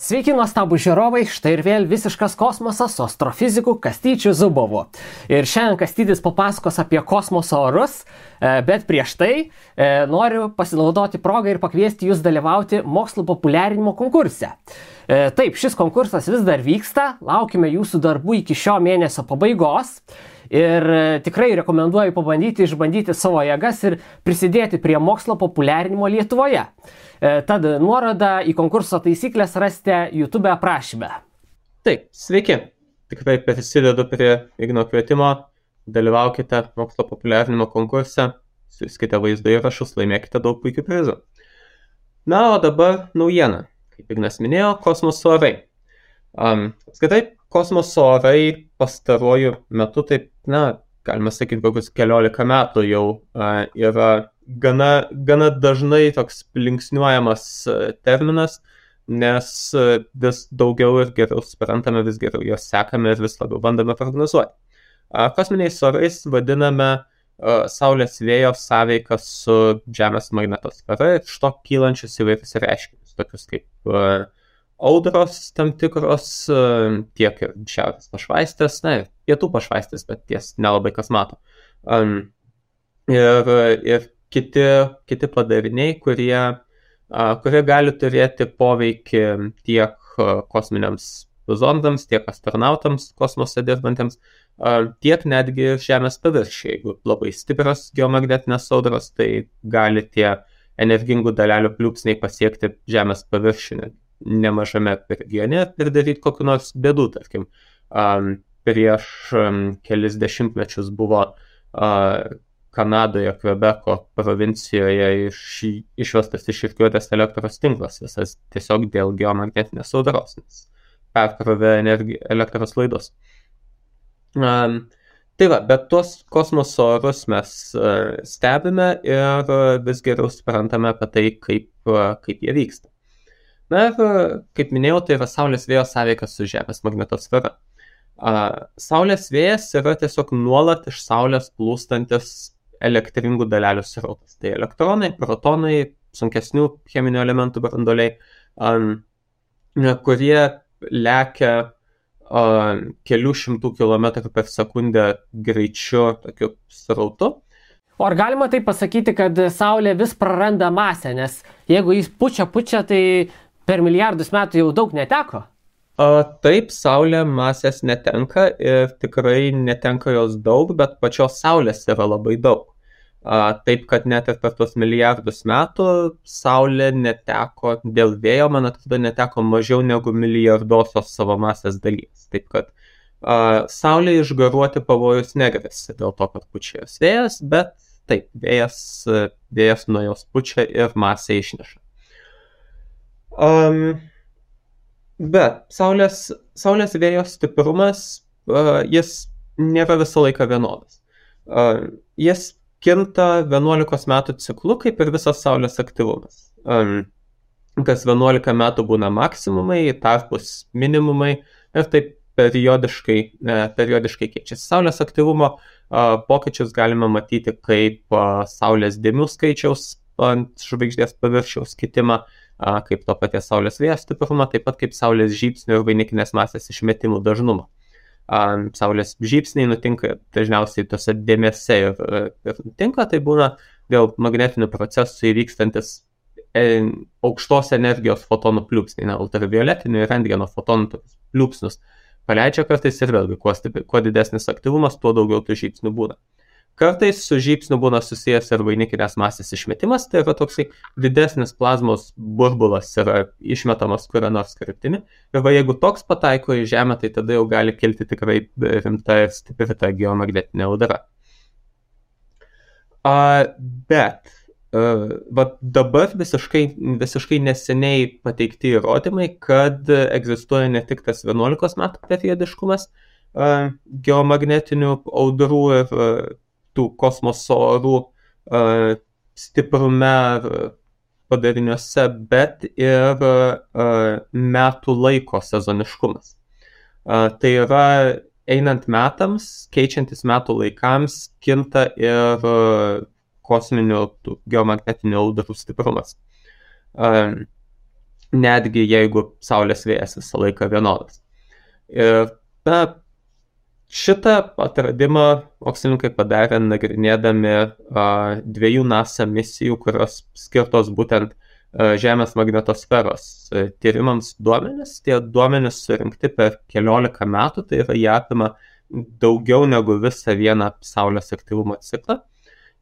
Sveiki, nuostabų žiūrovai, štai ir vėl visiškas kosmosas su astrofiziku Kastyčiu Zubovu. Ir šiandien Kastytis papasakos apie kosmoso orus, bet prieš tai noriu pasinaudoti progą ir pakviesti jūs dalyvauti mokslo populiarinimo konkurse. Taip, šis konkursas vis dar vyksta, laukime jūsų darbų iki šio mėnesio pabaigos. Ir tikrai rekomenduoju išbandyti savo jėgas ir prisidėti prie mokslo populiarinimo Lietuvoje. Tad nuorodą į konkurso taisyklės rasite YouTube aprašyme. Taip, sveiki. Tikrai prisidedu prie Igno kvietimo. Dalyvaukite mokslo populiarinimo konkurse, siųskite vaizdo įrašus, laimėkite daug puikių prizų. Na, o dabar naujiena. Kaip Ignas minėjo, kosmoso orai. Apskritai, kosmoso orai pastaruoju metu, taip, galima sakyti, kokius 14 metų jau yra gana dažnai toks linksniuojamas terminas, nes vis daugiau ir geriau suprantame, vis geriau jos sekame ir vis labiau bandome prognozuoti. Kosminiais orais vadiname Saulės vėjo sąveiką su Žemės magnetosfera ir iš to kylančius įvairius reiškinius, tokius kaip audros tam tikros, tiek ir šiaurės pašvaistės, ir pietų pašvaistės, bet ties nelabai kas mato. Ir kiti padariniai, kurie gali turėti poveikį tiek kosminiams zondams, tiek astronautams kosmose dirbantiems, tiek netgi Žemės paviršiuje. Jeigu labai stiprios geomagnetinės audros, tai gali tie energingų dalelių pliūpsniai pasiekti Žemės paviršių nemažame regione ir daryti kokių nors bėdų. Tarkim, prieš kelis dešimtmečius buvo Kanadoje, Kvebeko provincijoje išvestas iš rikiuotės elektros tinklas, visas tiesiog dėl geomagnetinės audros, nes perkrovė elektros laidus. Tai va, bet tuos kosmoso orus mes stebime ir vis geriau suprantame apie tai, kaip jie vyksta. Na ir, kaip minėjau, tai yra Saulės vėjo sąveika su Žemės magnetosfera. Saulės vėjas yra tiesiog nuolat iš Saulės plūstantis elektringų dalelių srautas. Tai elektronai, protonai, sunkesnių cheminių elementų branduoliai, kurie lekia kelių šimtų kilometrų per sekundę greičiu tokiu srautu. O ar galima tai pasakyti, kad Saulė vis praranda masę, nes jeigu jis pučia, tai per milijardus metų jau daug neteko? Taip, Saulė masės netenka ir tikrai netenka jos daug, bet pačios Saulės yra labai daug. Taip, kad net ir per tuos milijardus metų Saulė neteko dėl vėjo, man atrodo, neteko mažiau negu milijardosios savo masės dalies. Taip, kad Saulė išgaruoti pavojus negresia dėl to, kad pučia jos vėjas, bet taip, vėjas nuo jos pučia ir masę išneša. Bet Saulės vėjo stiprumas, jis nėra visą laiką vienodas. Jis kinta 11 metų ciklu, kaip ir visas Saulės aktyvumas. Kas 11 metų būna maksimumai, tarpus minimumai ir taip periodiškai keičiasi. Saulės aktyvumo pokyčius galime matyti kaip Saulės dėmių skaičiaus ant žvaigždės paviršiaus kitimą, kaip to paties Saulės vėjo stiprumą, taip pat kaip Saulės žybsnių ir vainikinės masės išmetimų dažnumą. Saulės žybsniai nutinka dažniausiai tose dėmėse ir nutinka, tai būna dėl magnetinių procesų įvykstantis aukštos energijos fotonų pliūpsniai, ultravioletinių ir rentgeno fotonų pliūpsnius paleidžia kartais ir vėlgi, kuo didesnis aktyvumas, tuo daugiau tų žybsnių būna. Kartais su žybsniu būna susijęs ir vainikinės masės išmetimas, tai yra toksai didesnis plazmos burbulas yra išmetamas kuria nors kryptimi. Ir jeigu toks pataiko į Žemę, tai tada jau gali kilti tikrai rimta ir stipri ta geomagnetinė audra. Bet dabar visiškai neseniai pateikti įrodymai, kad egzistuoja ne tik tas 11 metų periodiškumas geomagnetinių audrų ir tų kosmoso orų stiprume padariniuose, bet ir metų laiko sezoniškumas. Tai yra einant metams, keičiantis metų laikams, kinta ir kosminių geomagnetinių audrų stiprumas. netgi jeigu Saulės vėjas visą laiką vienodas. Ir šitą atradimą mokslininkai padarė nagrinėdami 2 NASA misijų, kurios skirtos būtent Žemės magnetosferos tyrimams duomenis. Tie duomenis surinkti per 14 metų, tai yra jie apima daugiau negu visą vieną Saulės aktyvumo ciklą.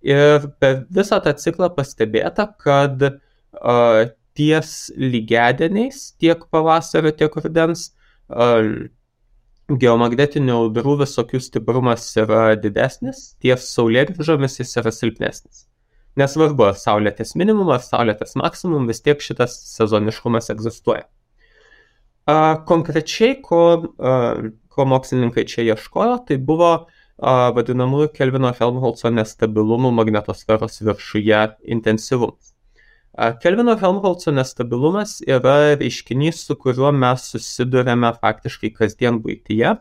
Ir per visą tą ciklą pastebėta, kad ties lygiadieniais tiek pavasario, tiek rudens geomagnetinių audrų visokių stiprumas yra didesnis, ties saulėgrįžomis jis yra silpnesnis. Nesvarbu, ar Saulė ties minimum, ar Saulė ties maksimum, vis tiek šitas sezoniškumas egzistuoja. Konkrečiai, ko mokslininkai čia ieškojo, tai buvo vadinamųjų Kelvino Helmholco nestabilumų magnetosferos viršuje intensyvumas. Kelvino Helmholco nestabilumas yra reiškinys, su kuriuo mes susidurėme faktiškai kasdien buityje,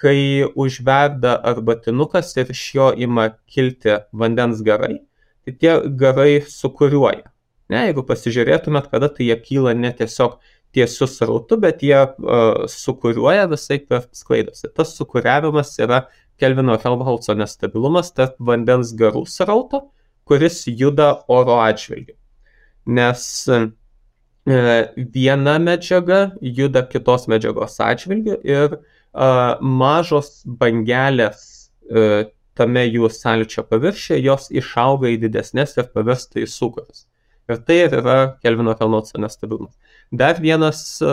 kai užverda arbatinukas ir iš jo ima kilti vandens garai, tai tie garai sukuriuoja. Jeigu pasižiūrėtumėt, kada tai jie kyla ne tiesiog tiesiu srautu, bet jie sukuriuoja visai per sklaidosi. Tas sukuriavimas yra Kelvino Helmholco nestabilumas tarp vandens garų srauto, kuris juda oro atžvilgiu. Nes viena medžiaga juda kitos medžiagos atžvilgiu ir mažos bangelės tame jų sąlyčio paviršiuje, jos išauga į didesnės ir pavirsta į sūkurus. Ir tai yra Kelvino Helmholco nestabilumas. Dar vienas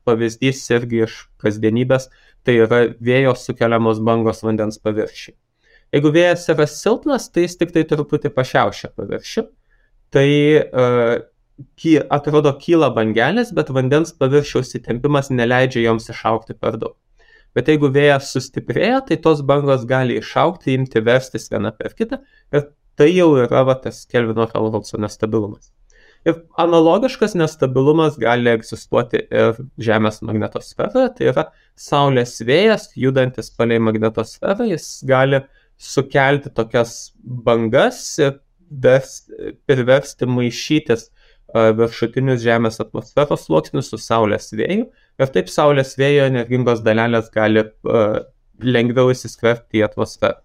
pavyzdys irgi iš kasdienybės, tai yra vėjo sukeliamos bangos vandens paviršiui. Jeigu vėjas yra silpnas, tai jis tik tai truputį pašiaušia paviršių. Tai atrodo kyla bangelės, bet vandens paviršiaus įtempimas neleidžia joms išaugti per daug. Bet jeigu vėjas sustiprėja, tai tos bangos gali išaugti, imti verstis viena per kitą ir tai jau yra tas Kelvino Helmholco nestabilumas. Ir analogiškas nestabilumas gali egzistuoti ir Žemės magnetosferoje, tai yra Saulės vėjas, judantis palei magnetosferą, jis gali sukelti tokias bangas ir priversti maišytis viršutinius Žemės atmosferos sluoksnius su Saulės vėju ir taip Saulės vėjo energingos dalelės gali lengviau įsiskverbti į atmosferą.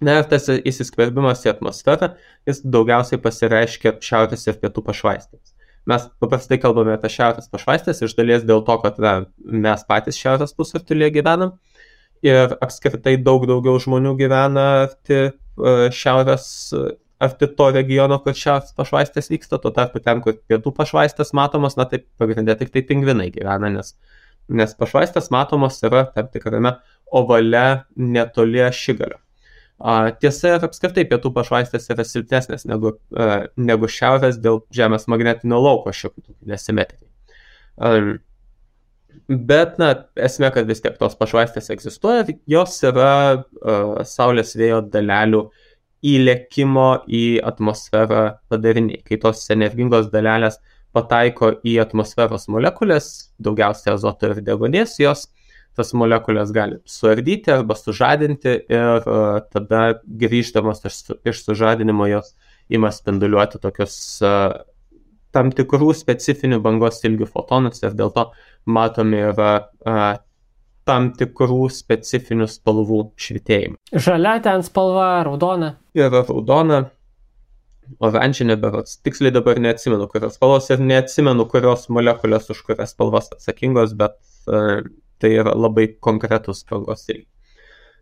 Na ir tas įsiskverbimas į atmosferą, jis daugiausiai pasireiškia šiaurės ir pietų pašvaistėms. Mes paprastai kalbame apie šiaurės pašvaistės iš dalies dėl to, kad mes patys šiaurės pusrutulyje gyvenam ir apskritai daug daugiau žmonių gyvena arti to regiono, kur šiaurės pašvaistės vyksta, tuo tarpu ten, kur pietų pašvaistės matomos, na taip pagrindė tik tai pingvinai gyvena, nes pašvaistės matomos yra tam tikrame ovale netoli ašigalio. Tiesa, ir apskritai pietų pašvaistės yra silpnesnės negu šiaurės dėl Žemės magnetinio lauko šiokių nesimetrijų. Bet, esmė, kad vis tiek tos pašvaistės egzistuoja, jos yra Saulės vėjo dalelių įlėkimo į atmosferą padariniai. Kai tos energingos dalelės pataiko į atmosferos molekulės, daugiausiai azoto ir deguonies, jos tas molekulės gali suardyti arba sužadinti ir tada grįždamas iš sužadinimo jos ima spinduliuoti tokius tam tikrų specifinių bangos ilgių fotonus ir dėl to matomi yra tam tikrų specifinių spalvų švytėjimą. Žalia ten spalva, raudona. Yra raudona, oranžinė berods. Tiksliai dabar neatsimenu, kurios spalvos ir neatsimenu, kurios molekulės už kurias spalvas atsakingos, bet tai yra labai konkretus spalvos ilgiai.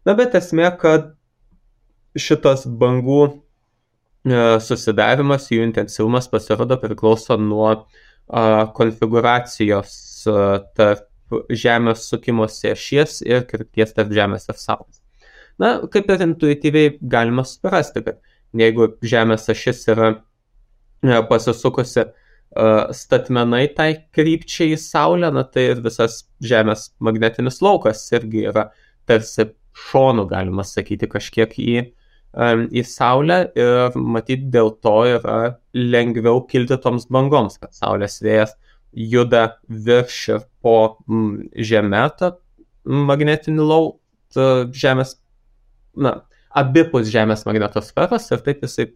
Na, bet esmė, kad šitas bangų susidarimas, jų intensyvumas pasirodo priklauso nuo konfiguracijos tarp Žemės sukimosi ašies ir krypties tarp Žemės ir Saulės. Na, kaip ir intuityviai galima suprasti, kad jeigu Žemės ašis yra pasisukusi statmenai tai krypčiai į Saulę, na, tai ir visas Žemės magnetinis laukas irgi yra tarsi šonų, galima sakyti, kažkiek į Saulę ir matyt dėl to yra lengviau kilti toms bangoms, kad Saulės vėjas juda virš ir po žemę tą magnetinį lauką Žemės, abipus Žemės magnetosferos ir taip jisai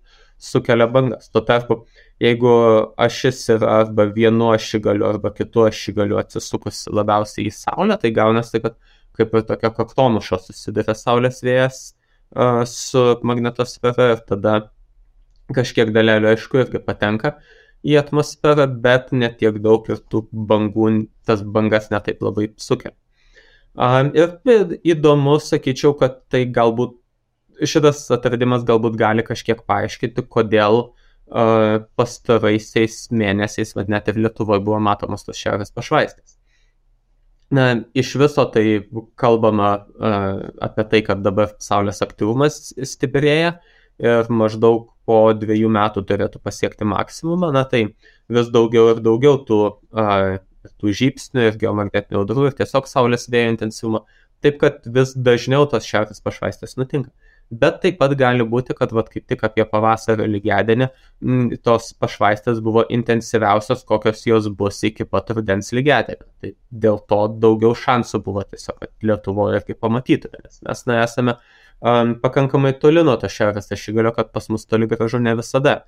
sukelia bangas. Tuo tarpu, jeigu ašis yra arba vienu ašigaliu arba kitu ašigaliu atsisukus labiausiai į Saulę, tai gaunasi, kad kaip ir tokia kaktomuša susiduria Saulės vėjas su magnetosfera ir tada kažkiek dalelių, aišku, irgi patenka į atmosferą, bet ne tiek daug ir tų bangų, tas bangas netaip labai sukelia. Ir įdomu, sakyčiau, kad tai galbūt, šitas atradimas galbūt gali kažkiek paaiškinti, kodėl pastaraisiais mėnesiais, bet net ir Lietuvoje buvo matomos tos šiaurės pašvaistės. Iš viso tai kalbama apie tai, kad dabar Saulės aktyvumas stiprėja ir maždaug po 2 metų turėtų pasiekti maksimumą, tai vis daugiau ir daugiau tų žybsnių ir geomagnetinių audrų ir tiesiog Saulės vėjo intensyvumo, taip kad vis dažniau tos šiaurės pašvaistės nutinka. Bet taip pat gali būti, kad kaip tik apie pavasario lygiadienį tos pašvaistės buvo intensyviausios, kokios jos bus iki pat rudens lygiadienio. Tai dėl to daugiau šansų buvo tiesiog, kad Lietuvoje irgi pamatytume, nes mes esame pakankamai toli nuo to šiaurės ašigalio, kad pas mus toli gražu ne visada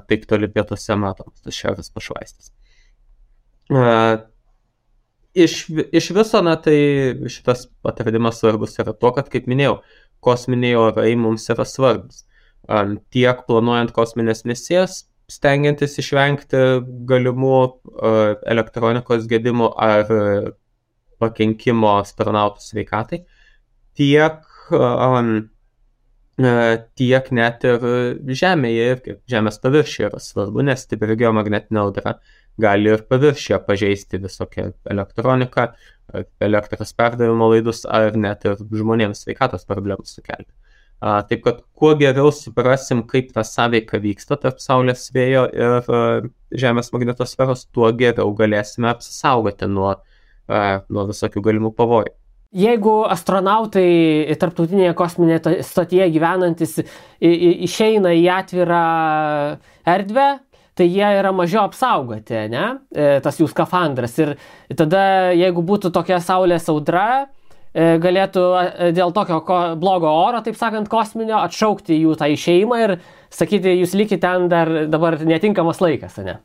taip toli pietuose matomos tos šiaurės pašvaistės. Iš viso, tai šitas atradimas svarbus yra to, kad, kaip minėjau, kosminiai orai mums yra svarbus. Tiek planuojant kosminės misijas, stengiantis išvengti galimų elektronikos gedimų ar pakenkimo astronautų sveikatai, tiek net ir Žemėje ir Žemės paviršiuje yra svarbu, nes stipri geomagnetinė audra gali ir paviršiuje pažeisti visokią elektroniką, elektros perdavimo laidus ar net ir žmonėms sveikatos problemų sukelti. Taip kad kuo geriau suprasim, kaip ta sąveika vyksta tarp Saulės vėjo ir Žemės magnetosferos, tuo geriau galėsime apsisaugoti nuo visokių galimų pavojų. Jeigu astronautai tarptautinėje kosminėje stotyje gyvenantis išeina į atvirą erdvę, tai jie yra mažiau apsaugoti, ne? Tas jų skafandras. Ir tada, jeigu būtų tokia Saulės audra, galėtų dėl tokio blogo oro, taip sakant, kosminio, atšaukti jų tą išėjimą ir sakyti, jūs likite ten dabar netinkamas laikas, ne?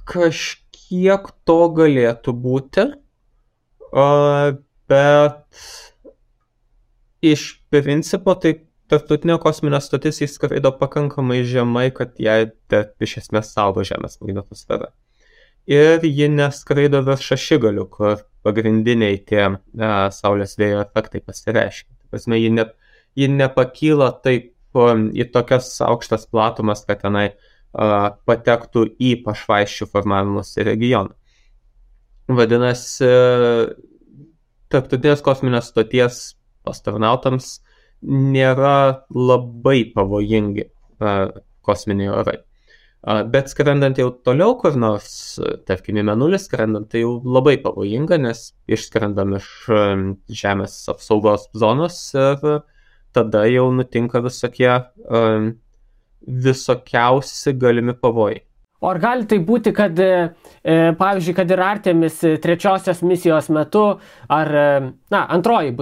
Kažkiek to galėtų būti, bet iš principo tai tarptautinė kosminė stotis įskraido pakankamai žemai, kad jai iš esmės saugo Žemės magnetosferą. Ir ji neskraido virš ašigalių, kur pagrindiniai tie Saulės vėjo efektai pasireiškia. Prasme, ji nepakyla taip į tokias aukštas platumas, kad tenai patektų į pašvaisčių formavimosi regioną. Vadinasi, tarptautinės kosminės stoties astronautams nėra labai pavojingi kosminiai orai. Bet skrendant jau toliau kur nors, tarkim į Mėnulį skrendant, tai jau labai pavojinga, nes išskrendam iš Žemės apsaugos zonos ir tada jau nutinka visokiausi galimi pavojai. O ar gali tai būti, kad, pavyzdžiui, kad ir Artemis 3 misijos metu, ar, antroji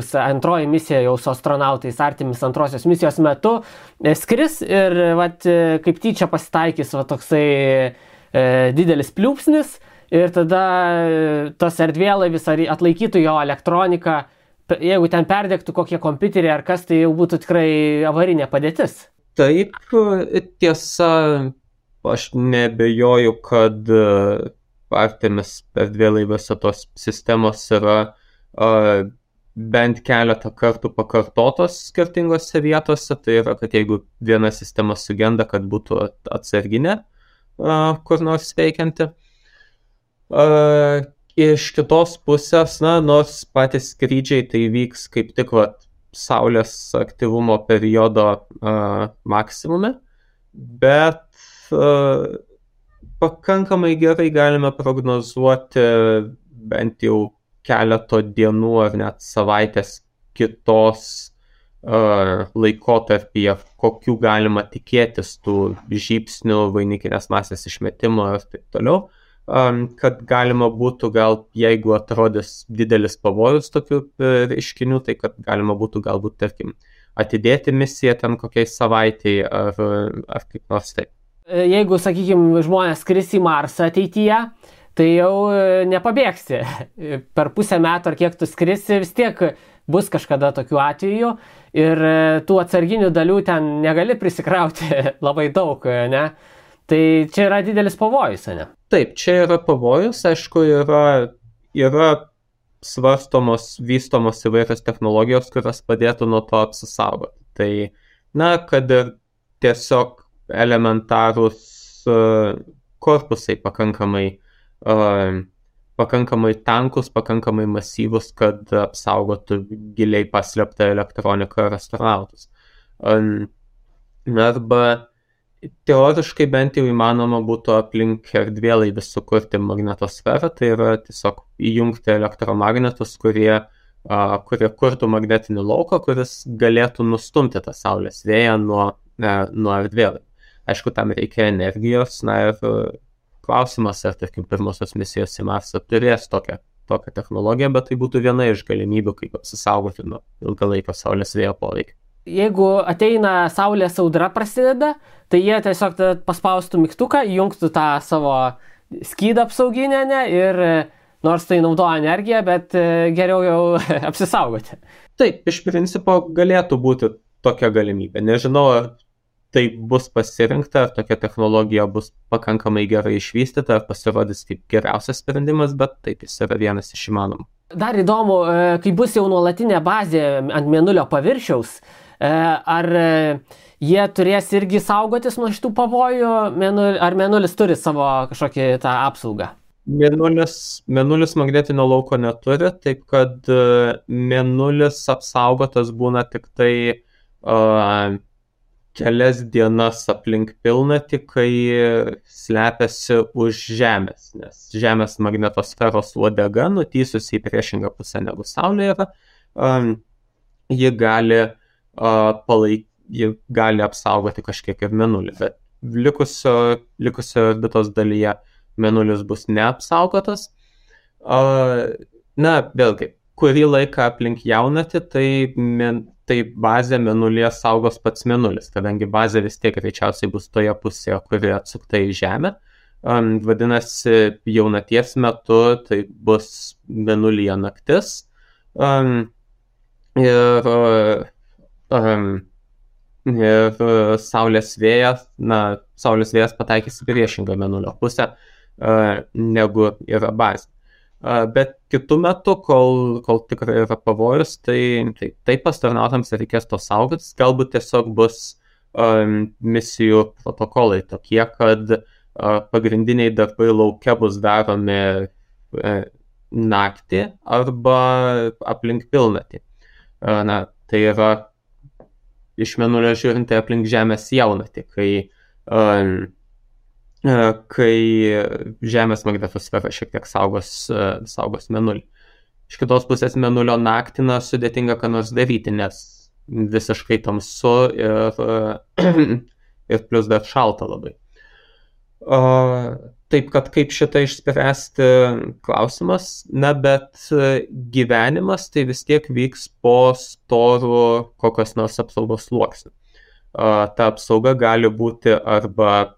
misija jau su astronautais Artemis 2 misijos metu skris ir kaip tyčia pasitaikys toksai didelis pliūpsnis ir tada tas erdvėlaivis atlaikytų jo elektroniką, jeigu ten perdegtų kokie kompiuteriai ar kas, tai jau būtų tikrai avarinė padėtis. Taip, tiesa. Aš nebejoju, kad Artemis erdvėlaiviuose tos sistemos yra bent keletą kartų pakartotos skirtingose vietose. Tai yra, kad jeigu viena sistema sugenda, kad būtų atsarginė kur nors veikianti. Iš kitos pusės, nors patys skrydžiai tai vyks kaip tik Saulės aktyvumo periodo maksimume, bet pakankamai gerai galime prognozuoti bent jau keleto dienų ar net savaitės kitos laikotarpyje, kokių galima tikėtis tų žybsnių, vainikinės masės išmetimo ir taip toliau, kad galima būtų gal, jeigu atrodys didelis pavojus tokių reiškinių, tai kad galima būtų galbūt, tarkim, atidėti misiją ten kokiai savaitei ar kaip nors taip. Jeigu, sakykime, žmonės skris į Marsą ateityje, tai jau nepabėgsi. Per pusę metų ar kiek tu skrisi, vis tiek bus kažkada tokių atvejų ir tų atsarginių dalių ten negali prisikrauti labai daug, ne? Tai čia yra didelis pavojus, ne? Taip, čia yra pavojus, aišku, yra svarstomos, vystomos įvairios technologijos, kurios padėtų nuo to apsisaugoti. Tai, kad ir tiesiog elementarūs korpusai pakankamai tankus, pakankamai masyvus, kad apsaugotų giliai paslėptą elektroniką ir astronautus. Arba teoriškai bent jau įmanoma būtų aplink erdvėlaivį sukurti magnetosferą, tai yra tiesiog įjungti elektromagnetus, kurie kurtų magnetinį lauką, kuris galėtų nustumti tą Saulės vėją nuo erdvėlaivio. Aišku, tam reikia energijos, ir klausimas, ar, tarkim, pirmosios misijos į Marsą turės tokią technologiją, bet tai būtų viena iš galimybių, kaip apsisaugoti nuo ilgalaikio Saulės vėjo poveikio. Jeigu ateina Saulės audra prasideda, tai jie tiesiog paspaustų mygtuką, įjungtų tą savo skydą apsauginę, ir nors tai naudoja energiją, bet geriau jau apsisaugoti. Taip, iš principo galėtų būti tokia galimybė. Nežinau, ar tai bus pasirinkta, ar tokia technologija bus pakankamai gerai išvystyta, ar pasirodys kaip geriausias sprendimas, bet taip, jis yra vienas iš įmanomų. Dar įdomu, kai bus jau nuolatinė bazė ant Mėnulio paviršiaus, ar jie turės irgi saugotis nuo šitų pavojų, ar Mėnulis turi savo kažkokį tą apsaugą? Mėnulis magnetinio lauko neturi, taip kad Mėnulis apsaugotas būna tik tai kelias dienas aplink pilnatį, kai slepiasi už Žemės, nes Žemės magnetosferos uodega, nutysusi į priešingą pusę negu Saulė yra, ji gali apsaugoti kažkiek ir Mėnulį, bet likusio orbitos dalyje Mėnulis bus neapsaugotas. Vėlgi, kurį laiką aplink jaunatį, tai bazę Mėnulyje saugos pats Mėnulis, kadangi bazė vis tiek greičiausiai bus toje pusėje, kuri atsukta į Žemę. Vadinasi, jaunaties metu tai bus Mėnulyje naktis. Ir Saulės vėjas pataikys į priešingą Mėnulio pusę, negu yra bazė. Bet kitų metų, kol tikrai yra pavojus, tai astronautams reikės to saugotis. Galbūt tiesiog bus misijų protokolai tokie, kad pagrindiniai darbai lauke bus daromi naktį arba aplink pilnatį. Tai yra iš Mėnulio žiūrint aplink Žemės jaunatį, kai Žemės magnetosfera šiek tiek saugos Mėnulį. Iš kitos pusės Mėnulio naktį sudėtinga ką nors daryti, nes visiškai tamsu ir plus dar šalta labai. Taip, kad kaip šitą išspręsti klausimas, bet gyvenimas tai vis tiek vyks po storų kokios nors apsaugos sluoksnių. Ta apsauga gali būti arba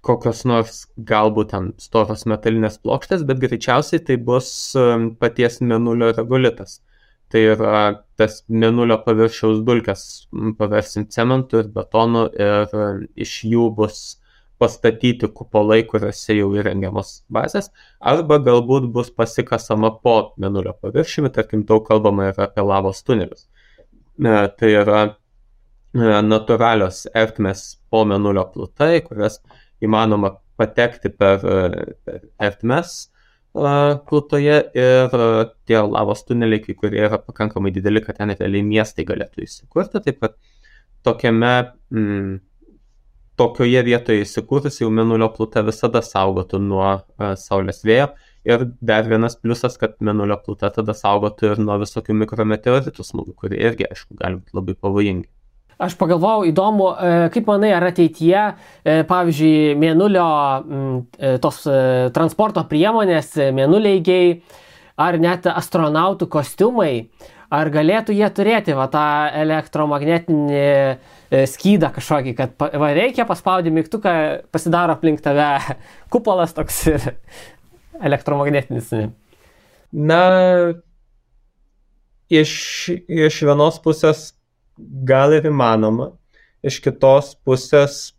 kokios nors galbūt ten storos metalinės plokštės, bet greičiausiai tai bus paties Mėnulio regolitas. Tai yra tas Mėnulio paviršiaus dulkes paversim cementu ir betonu ir iš jų bus pastatyti kupolai, kuriuose jau įrengiamos bazės, arba galbūt bus pasikasama po Mėnulio paviršiumi, tarkim, daug kalbama yra apie lavos tunelius. Tai yra natūralios ertmės po Mėnulio plutai, kurias įmanoma patekti per ertmes plutoje ir tie lavos tuneliai, kai kurie yra pakankamai dideli, kad ten realiai miestai galėtų įsikurti, taip kad tokioje vietoje įsikūrus jau Mėnulio pluta visada saugotų nuo Saulės vėjo ir dar vienas pliusas, kad Mėnulio pluta tada saugotų ir nuo visokių mikrometeoritų smūgių, kurie irgi, aišku, gali būti labai pavojingi. Aš pagalvojau, įdomu, kaip manai, ar ateityje, pavyzdžiui, Mėnulio tos transporto priemonės, mėnuleigiai, ar net astronautų kostiumai, ar galėtų jie turėti va, tą elektromagnetinį skydą kažkokį, kad va, reikia paspaudyti mygtuką, pasidaro aplink tave kupolas toks ir elektromagnetinis. Na, iš vienos pusės gal ir įmanoma, iš kitos pusės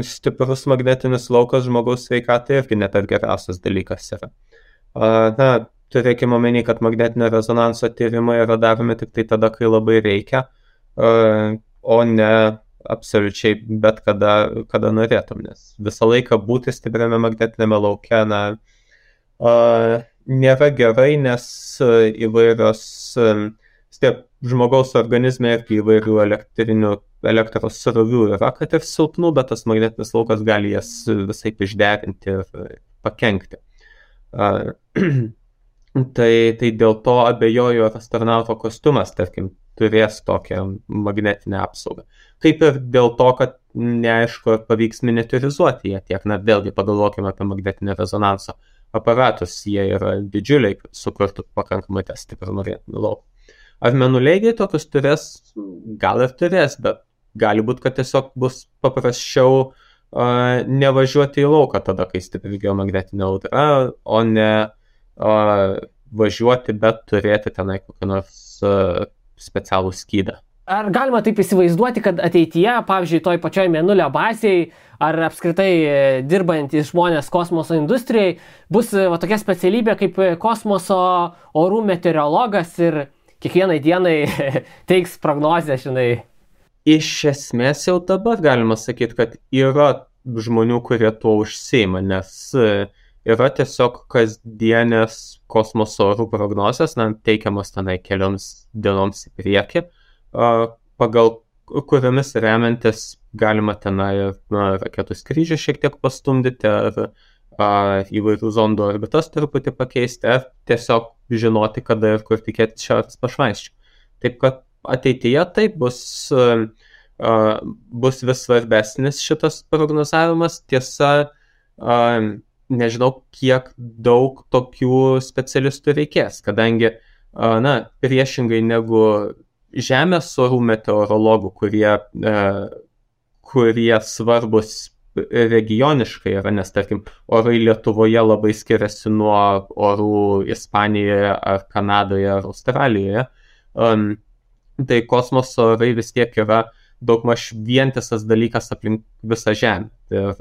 stiprus magnetinis laukas žmogaus sveikatai irgi net geriausias dalykas yra. Na, turėkime omeny, kad magnetinio rezonanso tyrimai yra daromi tik tai tada, kai labai reikia, o ne absoliučiai bet kada norėtum, nes visą laiką būti stipriame magnetinėme lauke, nėra gerai, nes įvairios žmogaus organizme irgi įvairių elektros srovių yra, kad ir silpnų, bet tas magnetinis laukas gali jas visai išderinti ir pakenkti. Tai dėl to abejoju, ar astronauto kostiumas, tarkim, turės tokią magnetinę apsaugą. Kaip ir dėl to, kad neaišku, ar pavyks miniaturizuoti jie tiek, vėlgi pagalvokime apie magnetinio rezonanso aparatus, jie yra didžiuliai, kad sukurtų pakankamai stiprų magnetinį lauką. Ar mėnuleigiai tokius turės? Gal ir turės, bet gali būti, kad tiesiog bus paprasčiau nevažiuoti į lauką tada, kai stipri geomagnetinė audra, o ne važiuoti, bet turėti tenai kokį nors specialų skydą. Ar galima taip įsivaizduoti, kad ateityje, pavyzdžiui, toj pačioj mėnulio bazėje, ar apskritai dirbantys žmonės kosmoso industrijai, bus va, tokia specialybė kaip kosmoso orų meteorologas ir kiekvienai dienai teiks prognozę, žinai? Iš esmės jau dabar galima sakyti, kad yra žmonių, kurie tuo užsiima, nes yra tiesiog kasdienės kosmoso orų prognozės, teikiamos tenai kelioms dienoms į priekį, pagal kuriomis remiantis galima tenai raketų skrydžių šiek tiek pastumdyti, ar įvairių zondų orbitas truputį pakeisti, ar tiesiog žinoti, kada ir kur tikėtis šiaurės pašvaisčių. Taip kad ateityje taip bus vis svarbesnis šitas prognozavimas. Tiesa, nežinau, kiek daug tokių specialistų reikės, kadangi, priešingai negu Žemės orų meteorologų, kurie svarbus regioniškai yra, nes, tarkim, orai Lietuvoje labai skiriasi nuo orų Ispanijoje ar Kanadoje ar Australijoje, tai kosmoso orai vis tiek yra daugmaž vientisas dalykas aplink visą Žemę. Ir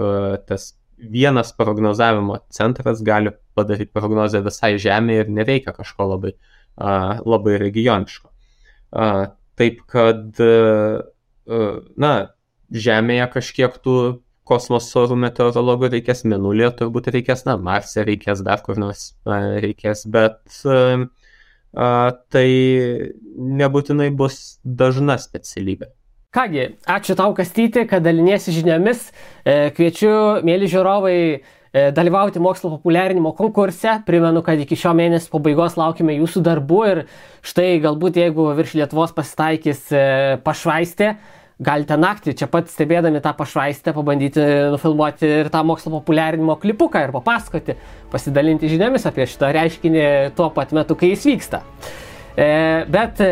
tas vienas prognozavimo centras gali padaryti prognozę visai Žemėje ir nereikia kažko labai regioniško. Taip kad, Žemėje kažkiek tų kosmoso orų meteorologų reikės, Mėnulyje turbūt reikės, Marse reikės, dar kur nors reikės, bet tai nebūtinai bus dažna specialybė. Kągi, ačiū tau, Kastyti, kad daliniesi žiniomis. Kviečiu, mėly žiūrovai, dalyvauti mokslo populiarinimo konkurse. Primenu, kad iki šio mėnesio pabaigos laukime jūsų darbų ir štai galbūt jeigu virš Lietuvos pasitaikys pašvaistė, galite naktį čia pat stebėdami tą pašvaistę pabandyti nufilmuoti ir tą mokslo populiarinimo klipuką ir papasakoti, pasidalinti žiniomis apie šitą reiškinį tuo pat metu, kai jis vyksta. Bet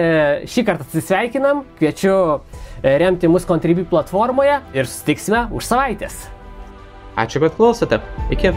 šį kartą atsisveikinam, kviečiu remti mus Contribui platformoje ir susitiksime už savaitės. Ačiū, kad klausote. Iki.